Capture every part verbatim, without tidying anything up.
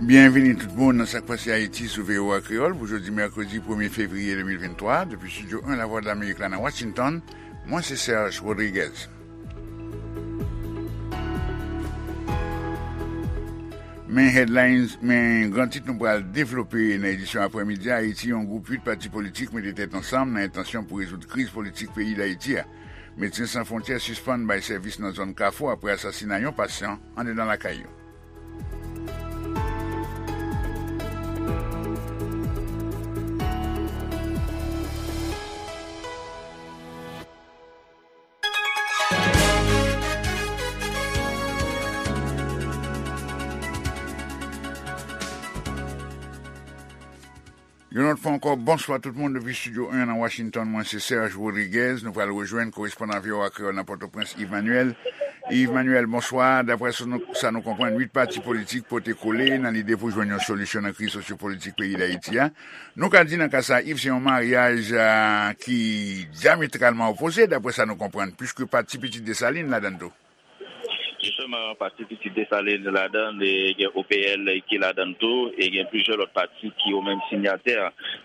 Byenvini tout moun nan Sa k Pase Ayiti sou V O A Kreyòl pou jodi mèkredi premye fevriye de mil venntwa, depi Estidyo en Lavwadlamerik la nan Washington, mwen se Serge Rodriguez. Men headlines, men gran tit nou pral devlope nan edisyon aprèmidi a. Ayiti, yon gwoup uit pati politik mete tèt ansanm nan entansyon pou rezoud kriz politik peyi Dayiti a. Medsen San Fwontyè sispann bay sèvis nan zòn Kafou apre asasina yon pasyan andedan lakay yo. Yon lòt fwa ankò, bonswa tout moun depi Estidyo en nan Washington. Mwen se Serge Rodriguez. Nou pral rejwenn korespondan V O A Kreyòl nan Pòtoprens, Yves Manuel. Yves Manuel, bonswa. Daprè sa nou, sa nou konprann, uit pati politik pote kole nan lide pou jwenn yon solisyon nan kriz sosyopolitik peyi Dayiti a. Nou ka di nan ka sa, Yves, se yon maryaj, a, ki dyametralman opoze, daprè sa nou konprann, piske pati Pitit Desalin ladan l tou. Jisteman, pati Pitit Desalin ladan l, e gen O P L ki ladan l tou, e gen plizyè lòt pati ki yo menm sinyatè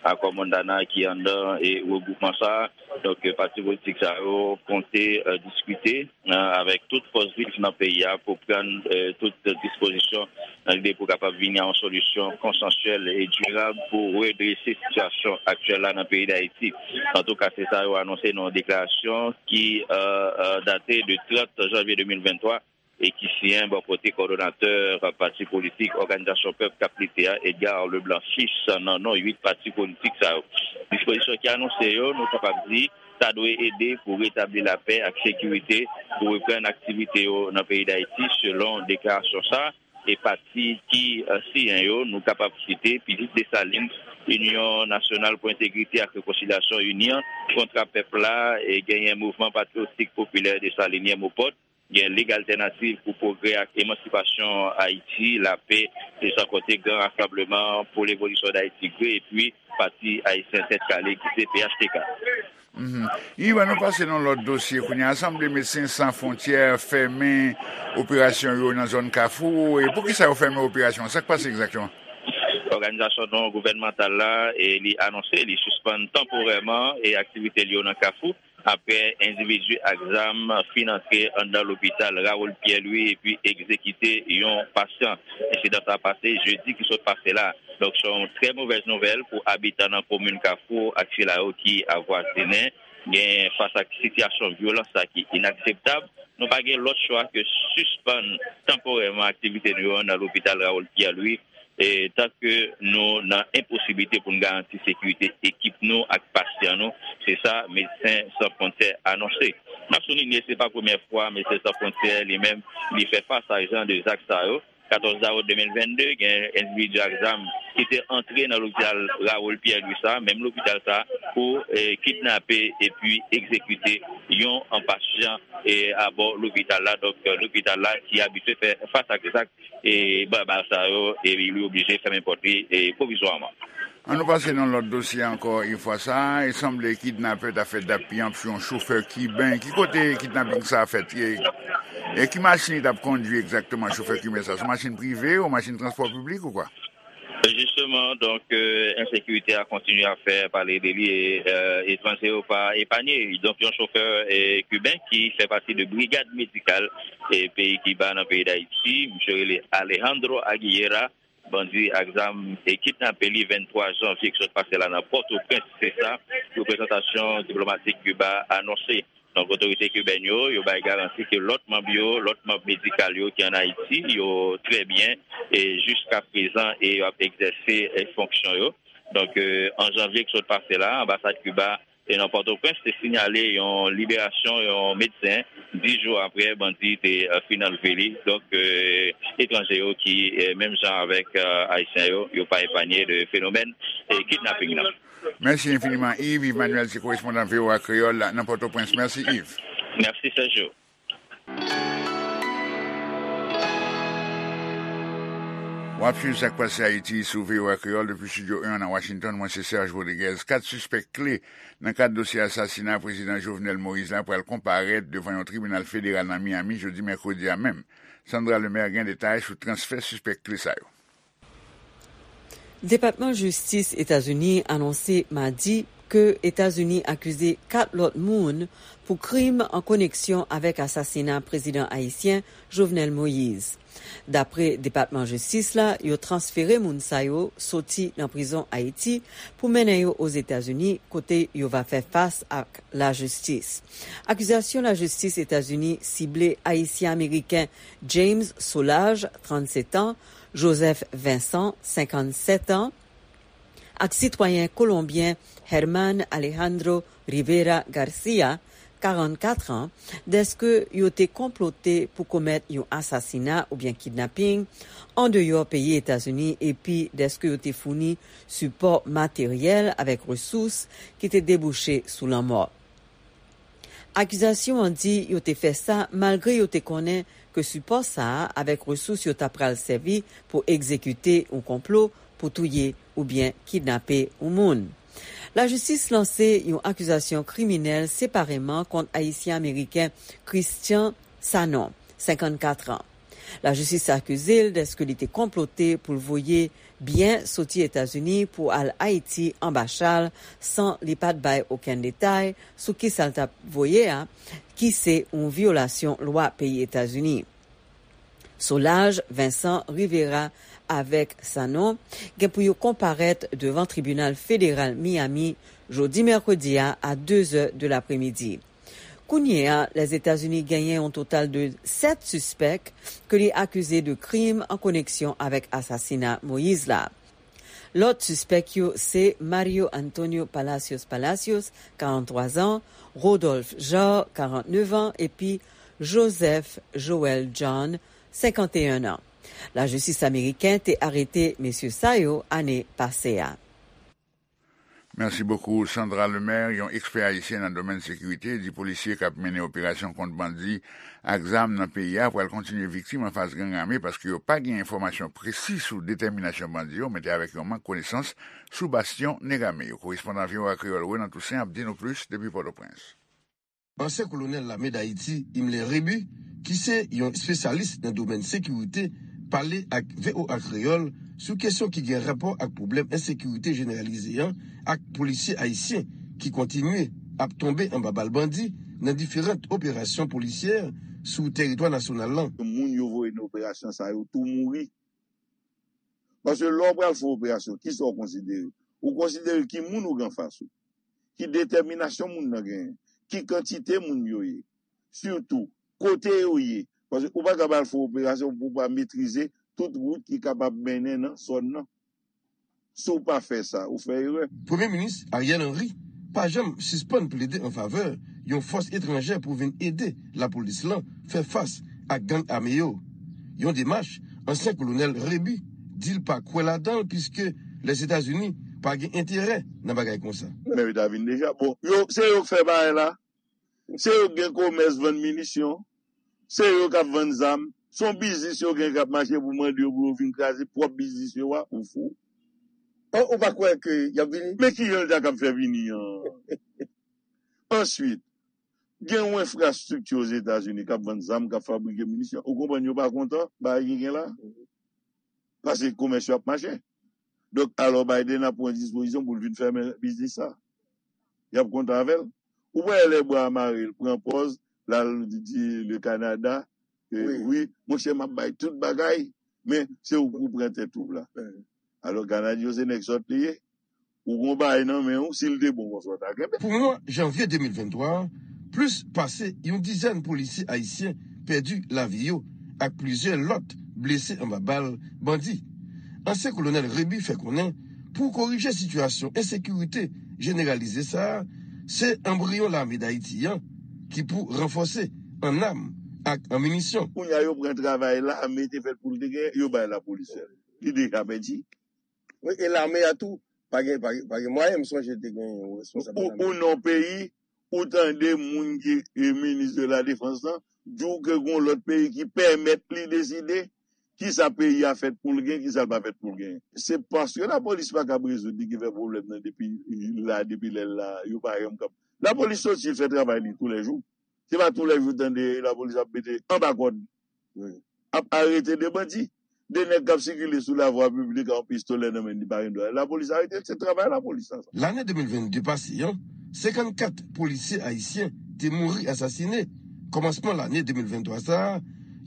akò Montana ki anndan e regwoupman sa a. Donk, pati politik sa yo konte, e, diskite, e, avèk tout fòs viv nan peyi a pou pran, e, tout dispozisyon nan lide pou kapab vini a yon solisyon konsansyèl e dirab pou redrese sitiyasyon aktyèl la nan peyi Dayiti. Antouka, se sa yo anonse nan yon deklarasyon ki, e, e, date de trant janvye de mil venntwa e ki siyen bò kote kowòdonatè pati politik Òganizasyon Pèp k ap Lite a, Edgar Leblanc Fils, nan non uit pati politik sa yo. Dispozisyon ki anonse yo, nou kapab di, ta dwe ede pou retabli lapè ak sekirite, pou reprann aktivite yo nan peyi Dayiti, selon deklarasyon sa a. E pati ki, e, siyen yo, nou kapab site Pitit Desalin, Inyon Nasyonal pou Entegrite ak Rekonsilyasyon, UNIRE, Kontra Pèp la, e genyen Mouvman Patriyotik Popilè Desalinyen, MOPOD, gen Lig Altènativ pou Pwogrè ak Emansipasyon Ayiti, Lapè, e san konte Gran Rasanbleman pou Levolisyon Dayiti, GREH, epi Pati Ayisyen Tèt Kale ki se P H T K. Mhm. Yves, ann nou pase nan lòt dosye kounye a. Sanble Medsen San Fwontyè fèmen operasyon yo nan zòn Kafou. E poukisa yo fèmen operasyon an? Sa k pase egzakteman? Òganizasyon non gouvènmantal la, e li anonse li sispann tanporèman e aktivite li yo nan Kafou, apre endividi ak zam fin antre anndan lopital Raoul Pierre Louis epi egzekite yon pasyan. Ensidan sa a pase jedi ki sot pase la. Donk, se yon trè movèz nouvèl pou abitan nan komin Kafou ak sila yo ki avwazinen. Gen, fas ak sitiyasyon vyolans sa ki inakseptab, nou pa gen lòt chwa ke sispann tanporèman aktivite nou yo nan lopital Raoul Pierre Louis, e, tanke nou nan enposiblite pou n garanti sekirite ekip nou ak pasyan nou, se sa Medsen San Fwontyè anonse. N ap soulinye, se pa premyè fwa Medsen San Fwontyè li menm li fè fas a jan de zak sa yo. Katòz dawout de mil vennde, gen endividi ak zam ki te antre nan lopital Raoul Pierre Louis sa, menm lopital sa, pou, e, kidnape epi egzekite yon, an, pasyan, e, abò lopital la. Donk, lopital la ki abitye fè fas ak zak, e, baba sa yo, e li oblije fèmen pòt li, e, pwovizwaman. Ann nou pase nan lòt dosye ankò yon fwa sa. E sanble kidnapè ta fè dappiyanp sou yon chofè kiben. Ki kote kidnaping sa a fèt? E, e ki machin li t ap kondui egzakteman, chofè kiben sa? Se yon machin prive ou machin transpò piblik ou kwa? Jisteman, donk, e, ensekirite a kontinye ap fè pale de li, e, e, etranje yo pa epanye. Donk, yon chofè, e, kiben ki fè pati de brigad medikal, e, peyi Kiba nan peyi Dayiti, misye rele Alejandro Aguilera, bandi ak zam, e, kidnape li venntwa janvye ki sot pase la nan Pòtoprens, se sa reprezantasyon diplomatik Kiba anonse. Donk, otorite kibèn yo, yo bay garanti ke lòt manm yo, lòt manm medikal yo ki ann Ayiti, yo trè byen, e jiska prezan, e y ap egzèse, e, fonksyon yo. Donk, e, an janvye ki sot pase la, anbasad Kiba, e, nan Pòtoprens te sinyale yon liberasyon yon medsen, dis jou apre bandi te, e, fin anlve li. Donk, e, etranje yo ki, e, menm jan avèk, e, Ayisyen yo, yo pa epanye de fenomèn, e, kidnaping nan. Mèsi enfiniman, Yves. Yves Manuel se korespondan V O A Kreyòl nan Pòtoprens. Mèsi, Yves. Mèsi, Sergio. W ap swiv Sa k Pase Ayiti sou V O A Kreyòl depi Estidyo en nan Washington. Mwen se Serge Rodriguez. Kat sispèk kle nan kad dosye asasina Prezidan Jovenel Moïse la pral konparèt devan yon tribinal federal nan Miami jodi mèkredi a menm. Sandra Lemaire gen detay sou transfè sispèk kle sa yo. Depatman Jistis Etazini anonse madi ke Etazini akize kat lòt moun pou krim an koneksyon avèk asasina prezidan ayisyen Jovenel Moïse. Dapre Depatman Jistis la, yo transfere moun sa yo soti nan prizon Ayiti pou mennen yo Ozetazini, kote yo va fè fas ak lajistis. Akizasyon lajistis Etazini sible Ayisyen-Ameriken James Solages, trannsèt an, Joseph Vincent, senkannsèt an, ak sitwayen kolonbyen Herman Alejandro Rivera Garcia, karannkat an, dèske yo te konplote pou komèt yon asasina oubyen kidnaping andeyò peyi Etazini, epi dèske yo te founi sipò materyèl avèk resous ki te debouche sou lanmò. Akizasyon an di yo te fè sa malgre yo te konnen ke sipò sa a avèk resous yo ta pral sèvi pou egzekite yon konplo pou touye oubyen kidnape yon moun. Lajistis lanse yon akizasyon kriminèl separeman kont Ayisyen-Ameriken Christian Sanon, senkann kat an. Lajistis akize l dèske li te konplote pou l voye byen soti Etazini pou al Ayiti anba chal san li pa t bay okenn detay sou kisa l t ap voye a, ki se yon vyolasyon lwa peyi Etazini. Solages, Vincent, Rivera avèk Sanon gen pou yo konparèt devan tribinal federal Miami jodi mèkredi a a de zè de lapremidi. Kounye a, Lèzetazini genyen yon total de sèt sispèk ke li akize de krim an koneksyon avèk asasina Moïse la. Lòt sispèk yo se Mario Antonio Palacios Palacios, karannntwa zan, Rodolphe Genre, karannnev an, epi Joseph Joel John, senkanteyen an. Lajistis ameriken te arete mesye sa yo ane pase a. Merci beaucoup, Sandra Lemaire, yon ekspè ayisyen nan domèn sekirite, di polisye k ap mennen operasyon kont bandi ak zam nan peyi a pral kontinye viktim anfas gang ame paske yo pa gen enfòmasyon presi sou detèminasyon bandi yo, mete avèk yon mank konesans sou bastyon nèg ame yo. Korespondan V O A Kreyòl Renan Toussaint ap di nou plis depi Pòtoprens. Ansyen kolonèl lame Dayiti, Himmler Rébu, ki se yon espesyalis nan domèn sekirite, pale ak V O A Kreyòl sou kesyon ki gen rapò ak pwoblèm ensekirite jeneralize an ak polisye ayisyen ki kontinye ap tonbe anba bal bandi nan diferan operasyon polisyè sou teritwa nasyonal lan. Moun yo voye nan operasyon sa yo tou mouri. Paske lè w pral fè yon operasyon, kisa w konsidere? Ou konsidere ki moun ou gen anfas ou, ki detèminasyon moun nan genyen, ki kantite moun yo ye, sitou kote yo ye. Paske ou pa ka pral fè yon operasyon pou w pa metrize tout wout ki kapab mennen nan zòn nan. Si w pa fè sa, ou fè erè. Premye Minis Ariel Henry pa janm sispann plede an favè yon fòs etranjè pou vin ede lapolis lan fè fas ak gang ame yo. Yon demach ansyen kolonèl Rébu di l pa kwè ladan l piske Lèzetazini pa gen enterè nan bagay konsa. Men yo ta vin deja. Bon, yo, se yo k fè bagay la. Se yo k gen komès vann minisyon. Se yo k ap vann zam. Se yon biznis yo gen k ap mache pou mande yo pou yo vin kraze pwòp biznis yo a. Ou fou? Ou pa kwè ke y ap vini? Men kijan l ta kab fè vini an? Answit, gen yon enfrastrikti Ozetazini k ap vann zam, k ap fabrike minisyon. Ou konprann yo pa kontan bagay ki gen la? Paske komès yo ap mache. Donk, alò Biden ap pran dispozisyon pou l vin fèmen biznis sa. Y ap kontan avè l. Ou pa wè lè bwa a mare, l pran pòz, l al di le Canada, wi, monchè, m ap bay tout bagay, men se ou pou pran tèt ou la. Alò, Kanadyen yo se nèg sòt li ye. Ou gen yon bagay nan men w, si l te bon konsa w ta kenbe. Pou mwa janvye de mil venntwa a, plis pase yon dizèn polisye ayisyen pèdi lavi yo ak plizyè lòt blese anba bal bandi. Ansyen kolonèl Rébu fè konnen pou korije sitiyasyon ensekirite jeneralize sa a, se anbriyon lame Dayiti an ki pou ranfòse an nam ak an minisyon. Kounye a yo pran travay lame te fèt pou l te genyen, yo bay lapolis fè l. Li deja pèdi. Wi, e lame a tou, pa gen, pa gen, pa gen mwayen, m sonje te gen yon responsab lame. Ou nan yon peyi, ou tande moun ki e minis de la defans lan, di w ke gen yon lòt peyi ki pèmèt li deside kisa peyi a fèt pou l gen, kisa l pa fèt pou l gen. Se paske lapolis pa kab rezoud li ki fè pwoblèm nan depi la, depi lè l la, yo pa janm kab. Lapolis soti fè travay li toulèjou. Se pa toulèjou w tande lapolis ap mete anba kòd, ap arete de bandi. De nèg k ap sikile sou lavwa piblik ak yon pistolè nan men, li pa gen dwa. Lapolis arete l, se travay lapolis la sa. Lane de mil venn de pase an, senkannkat polisye ayisyen te mouri asasinen. Kòmansman lane de mil venntwa sa a,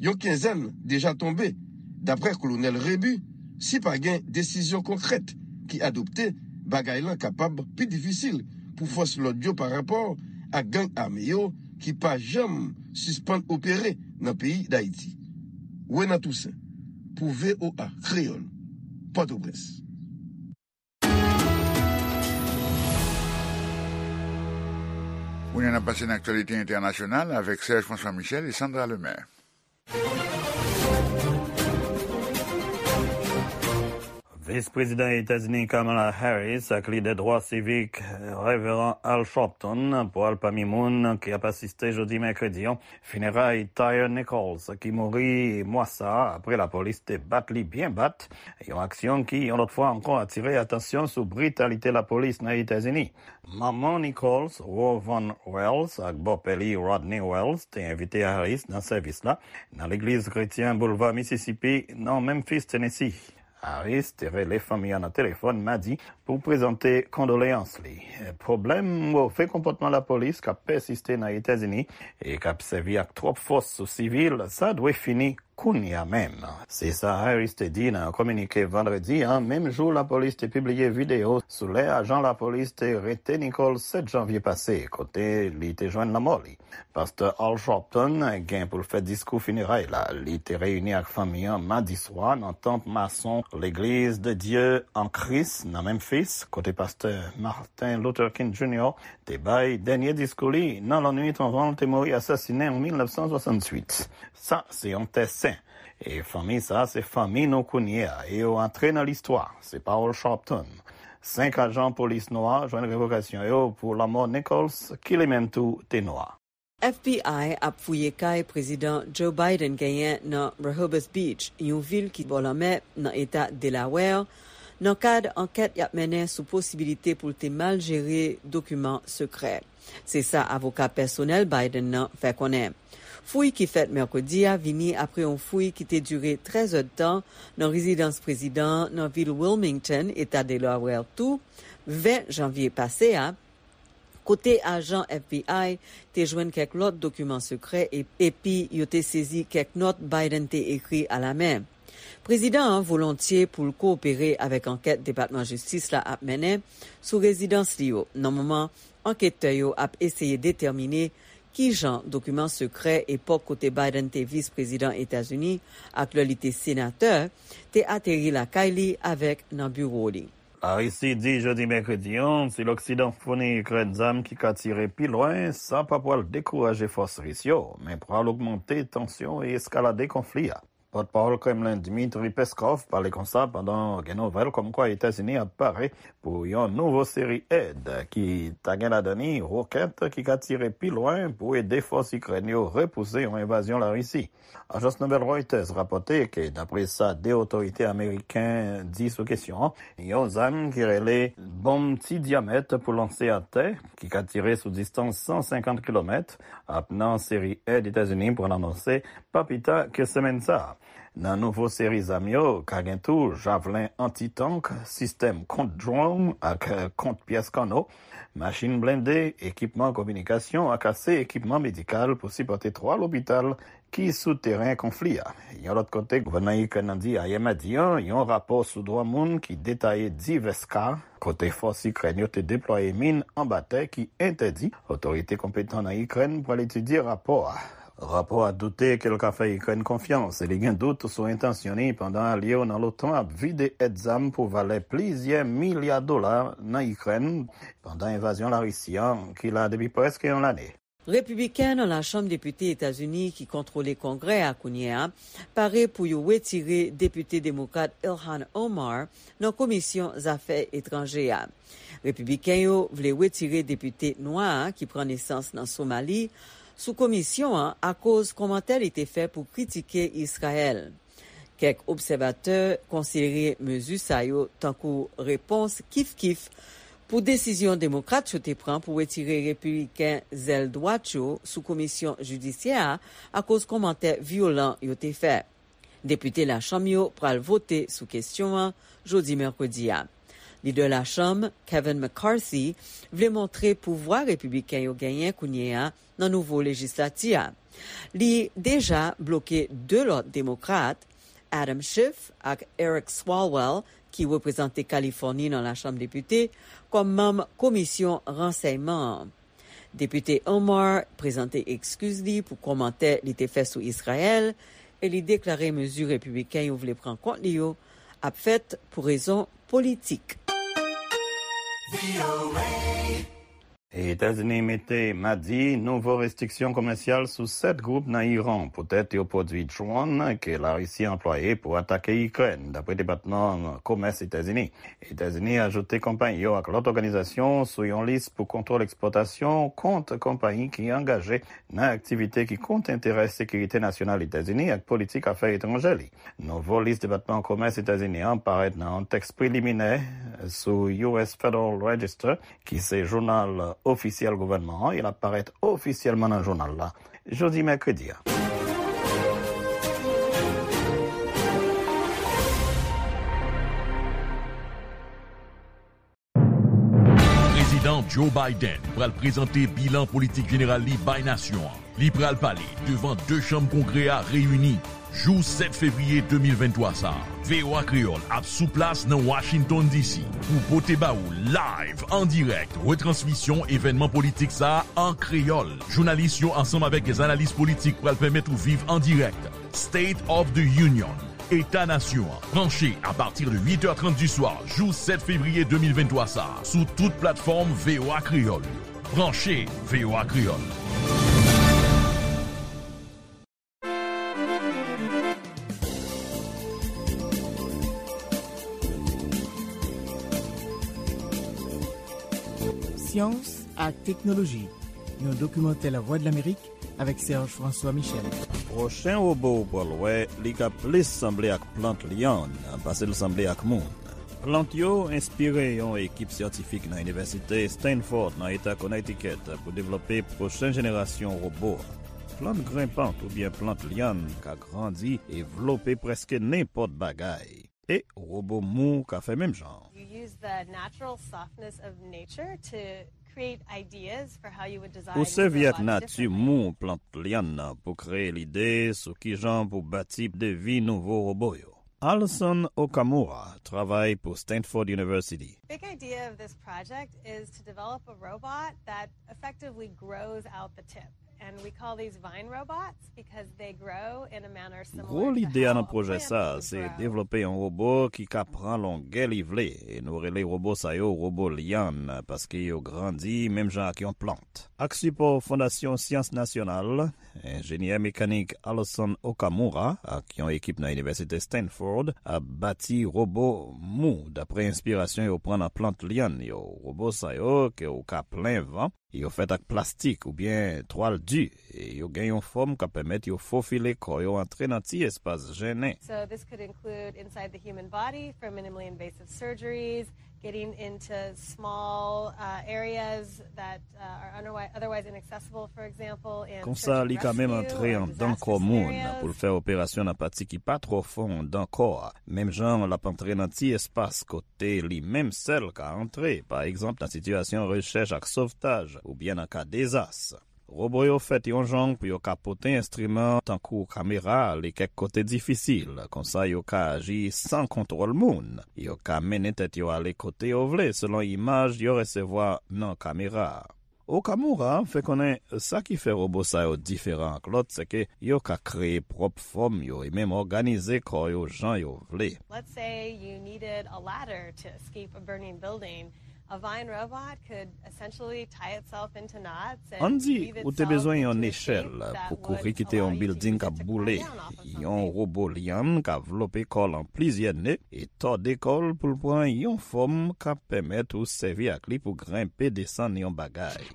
yon kenzèn deja tonbe. Daprè Kolonèl Rebu, si pa gen desizyon konkrèt ki adopte, bagay lan kapab pi difisil pou fòs lòd yo parapò ak gang ame yo ki pa janm sispann opere nan peyi Dayiti. Renan Toussaint, pou V O A Kreyòl, Pòtoprens. Kounye a n ap pase nan aktyalite entènasyonal avèk Serge François Michel e Sandra Lemaire. Vis Prezidan Etazini Kamala Harris ak lidè dwa sivik Reveran Al Sharpton pral pami moun ki ap asiste jodi mèkredi an fineray Tyre Nichols, ki mouri mwa sa a apre lapolis te bat li byen bat, yon aksyon ki, yon lòt fwa ankò, atire atansyon sou britalite lapolis nan Etazini. Manman Nichols, Ro Van Wells, ak bòpè li, Rodney Wells, te envite Harris nan sèvis la nan legliz kretyen Boulva Mississippi, nan Memphis, Tennessee. Harris te rele fanmi an nan telefòn madi pou prezante kondoleyans li. Pwoblèm move konpòtman lapolis k ap pèsiste nan Etazini e k ap sèvi ak twòp fòs sou sivil, sa dwe fini kounye a menm. Se sa Harris te di nan yon kominike vandredi a, menm jou lapolis te pibliye videyo sou lè ajan lapolis te rete Nichols sèt janvye pase, kote li te jwenn lanmò li. Pastè Al Sharpton gen pou l fè diskou fineray la. Li te reyini ak fanmi an madi swa nan tanp mason Legliz de Dye an Kris nan Memphis, kote pastè Martin Luther King Junior te bay dènye diskou li nan lannwit anvan l te mouri asasinen an mil nèf san swasantuit. Sa se yon tè sen. E fanmi sa se fanmi nou kounye a, e yo antre nan listwa. Se pawòl Sharpton. Senk ajan polis nwa jwenn revokasyon yo pou lanmò Nichols, ki li menm tou te nwa. F B I ap fouye kay Prezidan Joe Biden genyen nan Rehoboth Beach, yon vil ki bò lanmè nan eta Delaware, nan kad ankèt y ap mennen sou posibilite pou l te mal jere dokiman sekrè. Se sa avoka pèsonèl Biden nan fè konnen. Fouy ki fèt mèkredi a vini apre yon fouy ki te dire trèz èdtan nan rezidans prezidan an nan vil Wilmington, eta Delaware tou, ven janvye pase a, kote ajan F B I te jwenn kèk lòt dokiman sekrè e-, epi yo te sezi kèk nòt Biden te ekri alamen. Prezidan an volontye pou l kowopere avèk ankèt Depatman Jistis la ap mennen sou rezidans li yo, nan moman anketè yo ap eseye detèmine kijan dokiman sekrè epòk kote Biden te vis prezidan Etazini ak lè li te senatè te ateri lakay li avèk nan biwo li. Larisi di jodi mèkredi an, si Loksidan founi Ikrèn zam ki ka tire pi lwen, sa pa pral dekouraje fòs ris yo, men pral ogmante tansyon e eskalade konfli a. Pòtpawòl Kremlen Dmitry Peskov pale konsa pandan gen nouvèl kòmkwa Etazini ap pare pou yon nouvo seri èd ki ta gen ladan li wokèt ki ka tire pi lwen pou ede fòs Ikrèn yo repouse yon envazyon Larisi. Ajans nouvèl Reuters rapòte ke, dapre sa de otorite ameriken di sou kesyon an, yon zam ki rele bonm ti dyamèt pou lanse atè, ki ka tire sou distans san senkant kilomèt, ap nan seri èd Etazini pral anonse pa pita ke semèn sa a. Nan nouvo seri zam yo, ka gen tou javlen anti-tank, sistèm kont dwòn ak kont pyès kanno, machin blende, ekipman kominikasyon ak ase ekipman medikal pou sipòte twa lopital ki sou teren konfli a. Yon lòt kote, gouvènman Ikrèn nan di ayè madi an, yon rapò sou dwa moun ki detaye divès ka kote fòs Ikrèn yo te deplwaye min anba tè ki entèdi. Otorite konpetan nan Ikrèn pral etidye rapò a. Rapò a doute ke l ka fè Ikrèn konfyans e li gen dout sou entansyon li pandan alye yo nan lotan ap vide èd zam pou valè plizyè milya dola nan Ikrèn pandan envazyon Larisi an ki la depi prèske yon lane. Repibliken nan Lachanm Depite Etazini ki kontwole Kongrè a kounye a pare pou yo wetire Depite Demokrat Ilhan Omar nan Komisyon Zafè Etranje a. Repibliken yo vle wetire depite nwa a ki pran nesans nan Somali sou komisyon an akoz kòmantè li te fè pou kritike Izrayèl. Kèk obsèvatè konsidere mezi sa yo tankou repons kif-kif pou desizyon Demokrat yo te pran pou wetire Repibliken zèl dwat yo sou komisyon jidisyè a akoz kòmantè vyolan yo te fè. Depite Lachanm yo pral vote sou kesyon an jodi mèkredi a. Lidè Lachanm, Kevin McCarthy, vle montre pouvwa repibliken yo genyen kounye a nan nouvo lejislati a. Li deja bloke de lòt demokrat, Adam Schiff ak Eric Swalwell, ki reprezante Kalifòni nan Lachanm Depite, kòm manm komisyon ransèyman an. Depite Omar prezante ekskiz li pou kòmantè li te fè sou Izrayèl e li deklare mezi repibliken yo vle pran kont li yo ap fèt pou rezon politik. Etazini mete madi nouvo restriksyon komèsyal sou sèt gwoup nan Iran poutèt yo pwodui dwòn ke Larisi anplwaye pou atake Ikrèn, dapre Depatman Komès Etazini. Etazini ajoute konpayi yo ak lòt òganizasyon sou yon lis pou kontwòl ekspòtasyon kont konpayi ki angaje nan aktivite ki kont enterè sekirite nasyonal Etazini ak politik afè etranjè li. Nouvo lis Depatman Komès Etazini an parèt nan yon tèks preliminè sou U S Federal Register, ki se jounal ofisyèl gouvènman an, e l ap parèt ofisyèlman nan jounal la jodi mèkredi a. Prezidan Joe Biden pral prezante bilan politik jeneral li bay nasyon an. Li pral pale devan de chanm Kongrè a reyini jou sèt fevriye de mil venntwa sa a. V O A Kreyòl ap sou plas nan Washington D C pou pote ba ou live, an dirèk, retransmisyon evènman politik sa a an kreyòl. Jounalis yo ansanm avèk dè analis politik pral pèmèt ou viv an dirèk State of the Union, Eta Nasyon an, branche apati de uit è trant di swa jou sèt fevriye de mil venntwa sa a, sou tout platfòm V O A Kreyòl yo. Branche V O A Kreyòl. Syans ak teknoloji, yon dokimantè Lavwadlamerik avèk Serge François Michel. Pwochen wobo ou pral wè, li ka plis sanble ak plant lyann pase l sanble ak moun. Plant yo enspire yon ekip syantifik nan Inivèsite Stanford nan Eta Connecticut pou devlope pwochen jenerasyon wobo. Plant grenpant oubyen plant lyann ka grandi e vlope prèske nenpòt bagay. E wobo mou ka fè menm jan. You use the natural softness of nature to create ideas for how you would design. Ou sèvi ak nati mou plant lyann nan pou kreye lide sou kijan pou bati devi nouvo wobo yo. Alison Okamura travay pou Stanford University. Big idea of this project is to develop a robot that effectively grows out the tip. And we call these vine robots because they grow in a manner similar to how a plant grows. Gwo lide a nan pwojè sa a se devlope yon wobo ki ka pran longè li vle, e nou rele wobo sa yo wobo lyann, paske yo grandi menm jan ak yon plant. Ak sipò Fondasyon Syans Nasyonal, enjenyè mekanik Alison Okamura ak yon ekip nan Inivèsite Stanford ap bati wobo mou dapre enspirasyon yo pran nan plant lyann yo. Wobo sa yo ke ou ka plen van, yo fèt ak plastik oubyen twal di, e yo gen yon fòm k ap pèmèt yo fofile kò yo antre nan ti espas jennen. So this could include inside the human body for minimally invasive surgeries, getting into small uh, areas that uh, are otherwise, otherwise inaccessible, for example, in Konsa, li ka menm antre anndan kò moun pou l fè operasyon nan pati ki pa twò fon anndan kò a, menm jan l ap antre nan ti espas kote li menm sèl ka antre, pa egzanp nan sitiyasyon rechèch ak sovtaj oubyen nan ka dezas. Wobo yo fèt yon jan pou yo ka pote enstriman tankou kamera ale kèk kote difisil, konsa yo ka aji san kontwòl moun. Yo ka mennen tèt yo ale kote yo vle selon imaj yo resevwa nan kamera a. Okamura fè konnen sa ki fè wobo sa yo diferan ak lòt, se ke yo ka kreye pwòp fòm yo e menm òganize kò yo jan yo vle. Let's say you needed a ladder to escape a burning building. A vine robot could essentially tie itself into knots and Ann di, ou te bezwen yon nechèl pou kouri kite yon bilding k ap boule. Yon wobo lyann ka vlope kò l an plizyè ne e tòde kò l pou l pran yon fòm k ap pèmèt ou sèvi ak li pou grenpe desann yon bagay.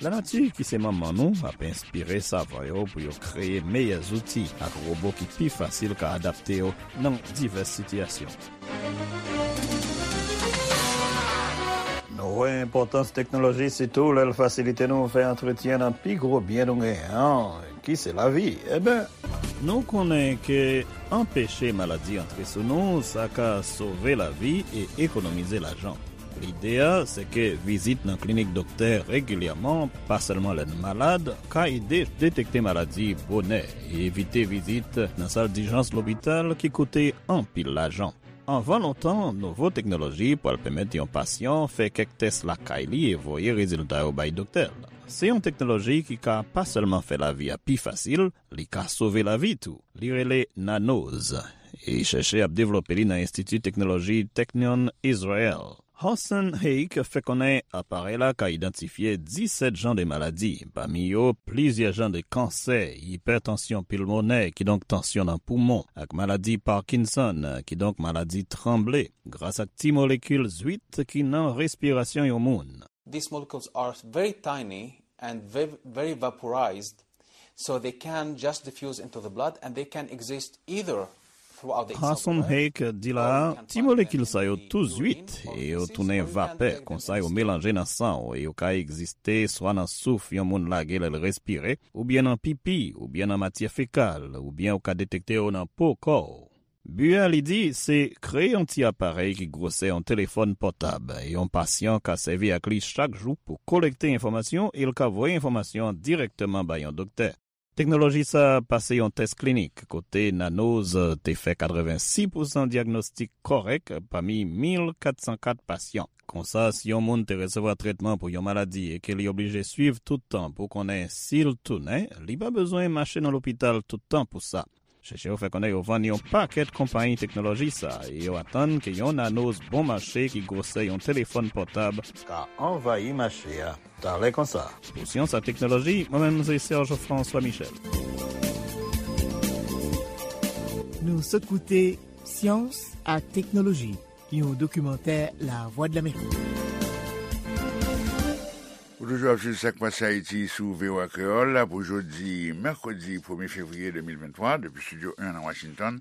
Lanati, ki se manman nou, ap enspire savan yo pou yo kreye meyè zouti ak wobo ki pi fasil ka adapte yo nan divès sitiyasyon. Nou wè enpòtans teknoloji, sitou lè l fasilite nou fè antretyen nan pi gwo byen nou genyen an, ki se lavi. Eben, Nou konnen ke anpeche maladi antre sou nou, sa ka sove lavi e ekonomize lajan. Lide a, se ke vizit nan klinik doktè regilyèman, pa sèlman lè n malad, ka ede detekte maladi bonè e evite vizit nan sal dijans lopital ki koute anpil lajan. Anvan lontan, nouvo teknoloji pral pèmèt yon pasyan fè kèk tès lakay li e voye rezilta yo bay doktè l. Se yon teknoloji ki ka pa sèlman fè lavi a pi fasil, li ka sove lavi tou. Li rele Nanoz, e chèchè ap devlope li nan Enstiti Teknoloji Technion Israel. Hossein Heikh fè konnen aparèy la ka idantifye disèt jan de maladi, pami yo plizyè jan de kansè, ipètansyon pilmonè, kidonk tansyon nan poumon, ak maladi Parkinson, kidonk maladi tranble, gras ak ti molekil zwit ki nan respirasyon yon moun. These molecules are very tiny and very, very vaporized, so they can just diffuse into the blood and they can exist either throughout the Hossein Heikh di la, ti molekil sa yo tou zwit e yo tounen vapè, konsa yo melanje nan san w e yo ka egziste swa nan souf yon moun lage lè l respire, oubyen nan pipi, oubyen nan matyè fekal, oubyen ou ka detekte yo nan po kò w. Bi a, li di, se kreye yon ti aparèy ki gwosè yon telefòn pòtab e yon pasyan ka sèvi ak li chak jou pou kolekte enfòmasyon e l ka voye enfòmasyon an dirèkteman bay yon doktè. Teknoloji sa a pase yon tès klinik kote Nanoz te fè katrevensis pousan dyagnostik kòrèk pami mil kat san kat pasyan. Konsa, si yon moun te resevwa trètman pou yon maladi e ke li oblije swiv tout tan pou konnen si l tounen, li pa bezwen mache nan lopital tout tan pou sa. Chèchè yo fè konnen yo vann yon pakèt konpayi teknoloji sa a e yo atann ke yon Nanoz bon mache ki gwosè yon telefòn pòtab ka anvayi mache a talè konsa. Pou Syans ak Teknoloji, mwen menm se Serge François Michel. Nou sot koute Syans ak Teknoloji, yon dokimantè Lavwadlamerik. Ou toujou ap swiv Sa k Pase Ayiti sou V O A Kreyòl pou jodi mèkredi premye fevriye de mil venntwa, depi Estidyo en nan Washington.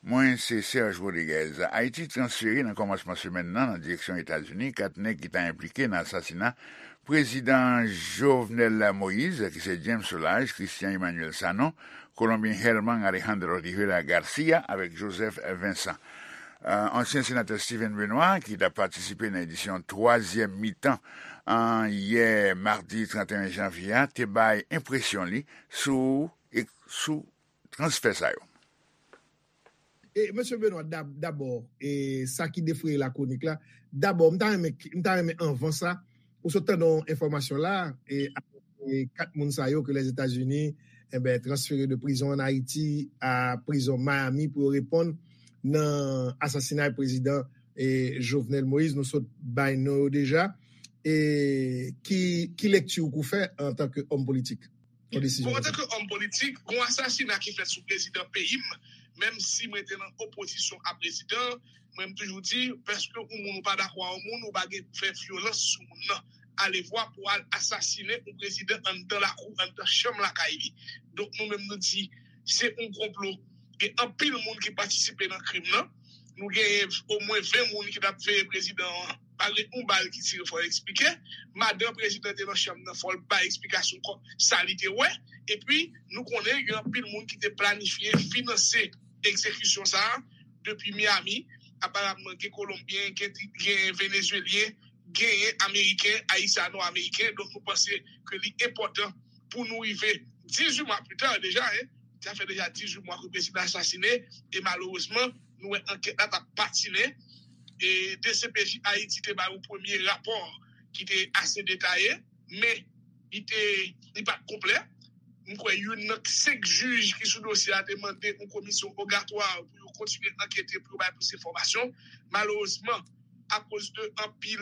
Mwen se Serge Rodriguez. Ayiti transfere nan kòmansman semèn nan nan direksyon Etazini kat nèg ki ta enplike nan asasina Prezidan Jovenel Moïse, ki se James Solages, Christian Emmanuel Sanon, Kolonbyen Germán Alejandro Rivera García avèk Joseph Vincent. Euh, ansyen senatè Steven Benoît, ki t ap patisipe nan edisyon twazyèm mitan an yè madi trannteyen janvye a, te bay enpresyon li sou, e, sou transfè sa yo. E, mesye Benoît, dab-, dabò, e, sa ki defraye lakronik la, dabò, m ta renmen, m ta renmen anvan sa, ou sot tande yon enfòmasyon la, e, e, kat moun sa yo ke Lèzetazini, enben, transfere de prizon an Ayiti a prizon Miami pou yo reponn nan asasinay prezidan, e, Jovenel Moïse. Nou sot bay non yo deja. E ki, ki lekti ou pou fè antanke òm politik? Yon desizyon Bon, konsa. Antanke òm politik, gon asasina ki fèt sou prezidan peyi m, menm si mwen te nan opozisyon a prezidan, mwen m toujou di, paske yon moun ou pa dakò a yon moun, ou pa gen fè vyolans sou moun nan. Alevwa pou al asasinen yon prezidan anndan lakou, anndan chanm lakay li. Donk, nou menm nou di, se yon konplo. Gen anpil moun ki patisipe nan krim nan. Nou genyen omwen ven moun ki t ap veye prezidan an. Pa gen yon bal ki tire, fò l eksplike. Madan prezidan te nan chanm nan, fò l bay eksplikasyon kò sa li te wè. Epi, nou konnen gen anpil moun ki te planifye, finanse egzekisyon sa a depi Miami. Aparamman, gen Kolonbyen, gen, gen Venezuelyen, genyen Ameriken, Ayisyano-Ameriken. Donk, nou panse ke li enpòtan pou nou rive dizuit mwa pita deja, hein. Sa fè deja dizuit mwa ke prezidan asasinen, e malerezman, nou wè ankèt la t ap patinen. E D C P J Ayiti te bay yon premye rapò ki te ase detaye, men li te, li pa t konplè. M kwè youn nan senk jij ki sou dosye a te mande yon komisyon wogatwa pou yo kontinye ankete, pou yo bay plis enfòmasyon. Malerezman, akoz de anpil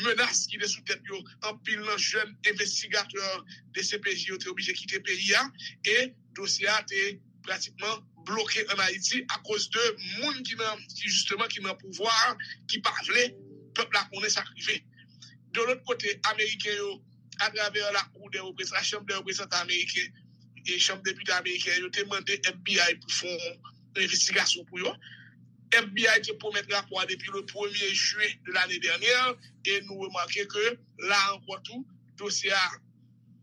menas ki te sou tèt yo, anpil nan jèn envestigatè D C P J yo te oblije kite peyi a, e dosye a te pratikman bloke ann Ayiti akoz de moun ki nan, ki jisteman ki nan pouvwa a, ki pa vle pèp la konnen sa k rive. De lòt kote, Ameriken yo, atravè la Cour des Représentants, la Chanm dè Reprezantan Ameriken e Chanm Depite Ameriken, yo te mande F B I pou fè yon envestigasyon pou yo. F B I te pwomèt rapò a depi le premye jen de lane dènyè, e nou remake ke la ankò tou, dosye a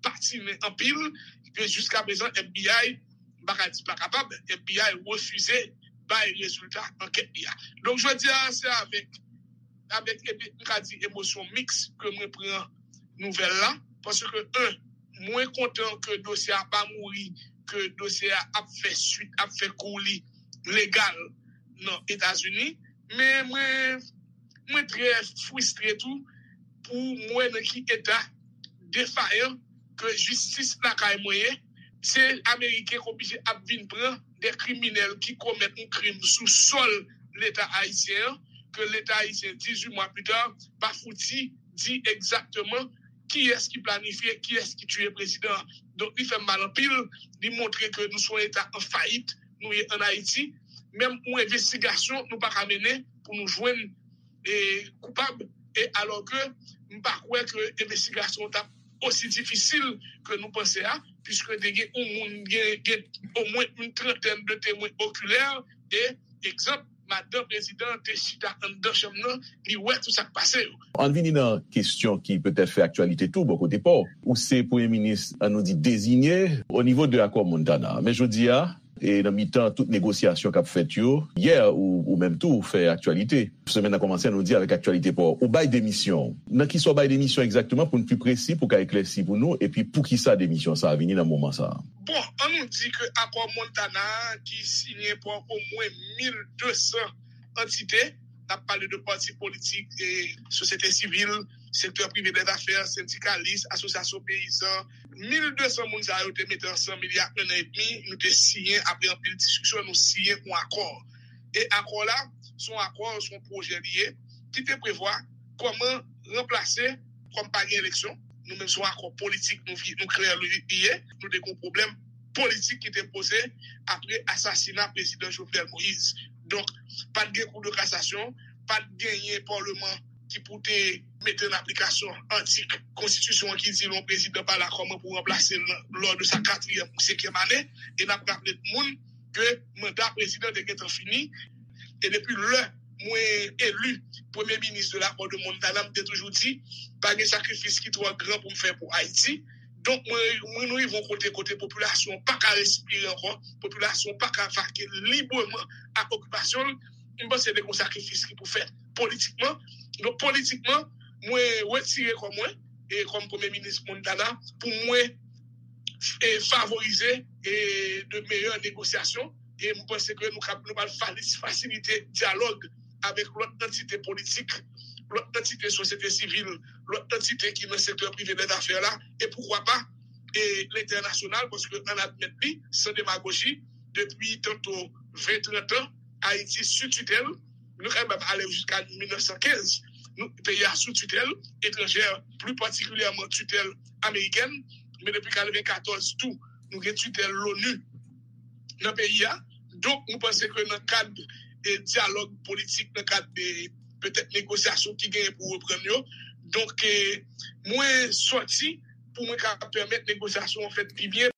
patinen anpil, ke jiska prezan F B I M pa ka di pa kapab, FBI refize bay rezilta ankèt li a. Donk, jodi a, se avèk, avèk, epi, m ka di, emosyon miks ke mwen pran nouvèl la, paske, en, mwen kontan ke dosye a pa mouri, ke dosye a ap fè swit, ap fè kou li legal nan Etazini, men mwen, mwen trè fristre tou pou mwen nan ki eta defayan ke jistis lakay mwen ye. Se Ameriken k oblije ap vin pran de kriminèl ki komèt yon krim sou sòl Leta ayisyen an, ke Leta ayisyen, dizuit mwa pita, pa fouti di egzakteman kiyès ki planifye, kiyès ki tiye prezidan an. Donk, li fè m mal anpil, li montre ke nou se yon eta an fayit, nou ye ann Ayiti. Menm yon envestigasyon, nou pa ka mennen pou nou jwenn e, koupab, e alò ke m pa kwè ke envestigasyon an t ap osi difisil ke nou panse a, piske te gen yon moun, gen, gen omwen yon trantèn de temwen okilè, e, egzanp, madanm prezidan an te chita anndan chanm nan, li wè tout sa k pase yo. Ann vini nan kesyon ki petèt fè aktyalite tou bò kote pa w. Ou se premye minis, ann nou di, deziye o nivo de akò Montana. Men jodi a, e nan mitan tout negosyasyon k ap fèt yo, yè ou, ou menm tou fè aktyalite. Semèn nan kòmanse, ann nou di, avèk aktyalite pa w. Ou bay demisyon w. Nan kisa w bay demisyon egzakteman, pou n pi presi, pou ka eklèsi pou nou, epi poukisa demisyon sa a vini nan moman sa a? Bon, ann nou di ke akò Montana a ki siyen pa omwen mil de san antite, n ap pale de pati politik, e sosyete sivil, sektè prive dè zafè, sendikalis, asosyasyon peyizan, mil de san moun sa yo te mete ansanm ilya en an edmi, nou te siyen, apre anpil diskisyon, nou siyen yon akò. E akò la, se yon akò, se yon pwojè li ye, ki te prevwa kòman ranplase, kòm pa gen eleksyon, nou menm se yon akò politik, nou, vi- nou klè li ye, nou te gen yon pwoblèm politik ki te poze apre asasina prezidan Jovenel Moïse. Donk, pa t gen kou de kasasyon, pa t genyen paleman ki pou te mete an aplikasyon atik konstitisyon an ki di lè yon prezidan pa la, kòman pou ranplase l lò de sa katriyèm ou senkyèm ane. E n ap raple tout moun ke manda prezidan te gentan fini. E depi lè mwen eli premye minis de l'accord de Montana, m te toujou di, pa gen sakrifis ki twò gran pou m fè pou Ayiti. Donk, mwen, mwen nou rive yon kote, kote popilasyon an pa ka respire ankò, popilasyon an pa ka vake libreman ak okipasyon l. M panse te gen yon sakrifis ki pou fèt politikman. Donk, politikman, mwen retire kò mwen, e kòm premye minis Montana, pou mwen, e favorize, e de meyè negosyasyon. E m panse ke nou kab, nou pral falis- fasilite dyalòg avèk lòt antite politik, lòt antite sosyete sivil, lòt antite ki nan sektè prive dè zafè la, e poukwa pa, e lentènasyonal, paske ann admèt li, san demagoji, depi tanto ven, trant an, Ayiti sou titèl, nou ka menm ale jiska mil nèf san kenz, nou, peyi a sou titèl etranjè, pli patikilyèman titèl amerikèn, men depi katrevenkatòz tou, nou gen titèl l'ONU nan peyi a. Donk, nou panse ke nan kad, e, dyalòg politik, nan kad de petèt negosyasyon ki genyen pou reprann yo. Donk, e, mwen sòti pou mwen ka pèmèt negosyasyon an fèt pi byen.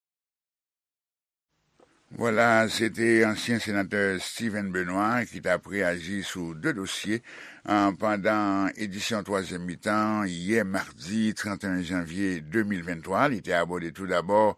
Vwala, se te ansyen senatè Steven Benoît ki t ap reyaji sou de dosye, an, pandan edisyon twazyèm mitan yè madi trannteyen janvye de mil venntwa. Li te abòde tou dabò,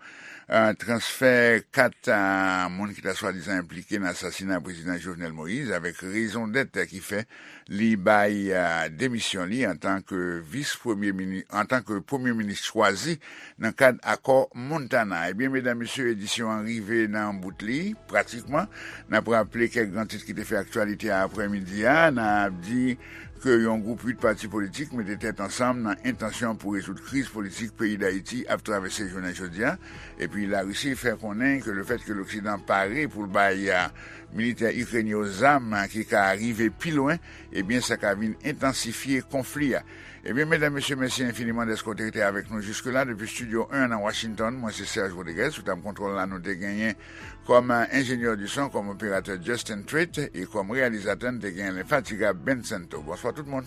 an, transfè kat, an, moun ki ta swadizan enplike nan asasina prezidan Jovenel Moïse avèk rezon dèt ki fè li bay, a, demisyon li antanke vis premye mini-, antanke premye minis chwazi nan kad akò Montana. Ebyen, medam, mesye, edisyon an rive nan bout li, pratikman. N ap raple kèk gran tit ki te fè aktyalite a aprèmidi a. N ap di ke yon gwoup uit pati politik mete tèt ansanm nan entansyon pou rezoud kriz politik peyi Dayiti ap travèse jounen jodi a. Epi Larisi fè konnen ke lefèt ke Loksidan pare pou l bay, a, militè ikrenyen yo zam ki ka rive pi lwen, ebyen, sa ka vin entansifye konfli a. Ebyen, medam, mesye, mèsi enfiniman dèske w te rete avèk nou jiske la. Depi Estidyo en nan Washington, mwen se Serge Rodriguez. Sou tab kontwòl la, nou te genyen kòm enjenyè di son, kòm operatè Justin Treat, e kòm reyalizatè, n te genyen lenfatigab Ben Santo. Bonswa tout moun.